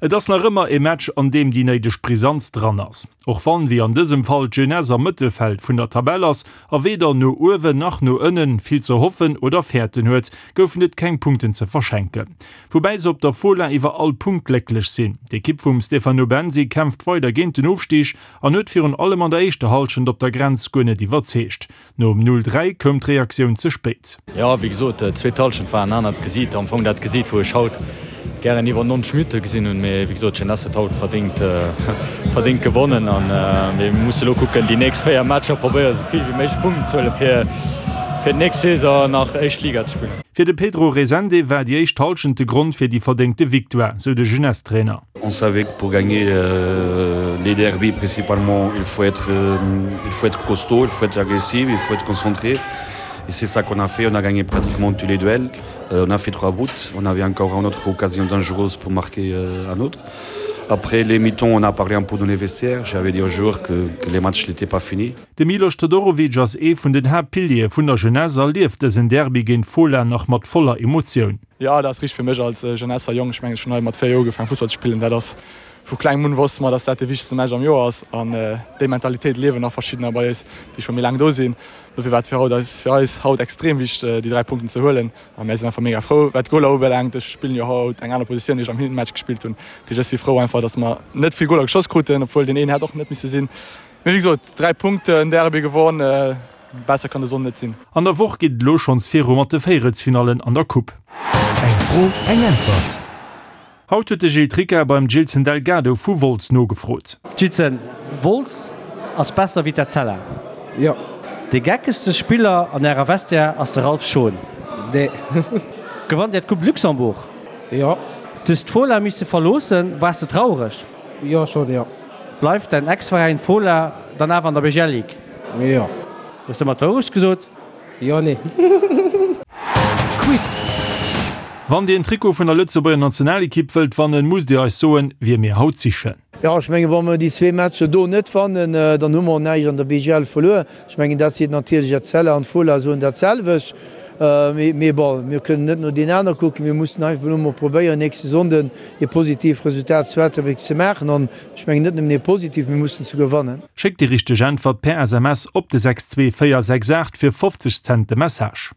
Et ass nach ëmmer e Match, an deem déi néideg Brisanz dran ass. Och wann, wéi an dësem Fall, d'Jeunesse am Mëttelfeld vun der Tabell ass a weder no uewen nach no ënnen vill ze hoffen oder fäerten huet, goufen et keng Punkten ze verschenken. Woubäi se op der Fola iwwer all Punkt glécklech sinn. D'Ekipp vum Stefano Bensi kämpft weider géint den Ofstig an huet virun allem an der éischter Hallschent op der Grenz guer net iwwerzeegt. Nom 0, 3 koum d'Reaktioun ze spéit. Jo, wéi gesot, d'zweet Hallschent war en anert Gesiit, am Fong dat Gesiit, wou ech haut gären iwwer 90 Minutte gesinn hunn. Mee wéi gesot, d'Jeunesse huet haut verdéngt, verdéngt gewonnen an mir musse elo kucken, déi nächst 4 Matcher probéieren, esou vill wéi méiglech Punkten ze huelen, fir fir d'nächst Saison nach éischt Liga ze spillen. Fir de Pedro Resende war déi éischt Hallschent de Grond fir déi verdéngte Victoire, sou de Jeunesse-Trainer. On savait que pour gagner euh, les derbys principalement, il faut être, euh, il faut être costaud, il faut être agressif, il faut être concentré. Et c'est ça qu'on a fait, on a gagné pratiquement tous les duels. Euh, on a fait trois routes, on avait encore une autre occasion dangereuse pour marquer euh, un autre. Après les mitons, on a parlé un peu dans les vestiaires. J'avais dit aux joueurs que, que les matchs n'étaient pas finis. De Milos Todorovic ass ee vun den Haaptpiliere vun der Jeunesse a lieft dësen Derby géint Fola nach mat voller Emotioun. Jo, dat ass richteg fir mech als Jeunesser Jong. Ech mengen, ech hunn hei mat 4 Joer ugefaangen Fussball ze spillen. Dat ass vu klengem un wosste mer, dass dat de wichtegste Match am Joer ass. An déi Mentalitéit liewen nach verschiddener bei eis, déi scho méi laang do sinn. Dofir war et fir haut eis fir eis haut extrem wichteg, déi 3 Punkten ze huelen. A mär sinn einfach mega frou. Wat d'Goler ubelaangt, ech spillen jo haut eng aner Positioun, déi ech am Hinmatch gespillt hunn. Dat heescht, ech si frou einfach, dass mer net vill Goler geschoss kruten, obwuel deen een hätt och net misse sinn. Mee wéi gesot, 3 Punkten, Derby gewonn. Besser kann de Sonn net sinn. An der Woch geet et elo schonns viru mat de Véierelsfinallen an der Coupe. Eng Fro, eng Äntwert. Haut huet de Gilles Tricca beim Gilson Delgado vu Wolz nogefrot. Gilson, Wolz ass besser wéi d'Etzella? Jo. De geckegste Spiller an ärer Vestiaire ass de Ralph Schon? Nee. Gewannt Dir d'Coupe Luxembourg? Jo. Du hues d'Fola misse verloossen, waars de traureg? Jo, schon, jo. Bleift däin Ex-Veräin Fola dann awer an der BGL Ligue? Jo. Hues de mer d'Wourecht gesot? Jo, nee. Quiz! Wann dir en Trikot vun der Lëtzebuerger Nationalekipp wëllt wannen, musst dir eis soen, wie mir haut sichen. Jo, ech mengen, wa mer déi zwee Matcher do net wannen, dann hu mer och näischt an der BGL verluer. Ech mengen, dat seet natierlech Etzella an d'Fola soen dat selwecht. Mee bon, mir kënnen net no deenen aner kucken. Mir mussen einfach elo mol probéieren, nächste Sonnden ee positivt Resultat zu Ettelbréck ze maachen. An ech mengen net nëmmen ee positivt, mir mussen souguer wannen. Schéckt déi richteg Äntwert per SMS op de 62468 fir 50 Cent de Message.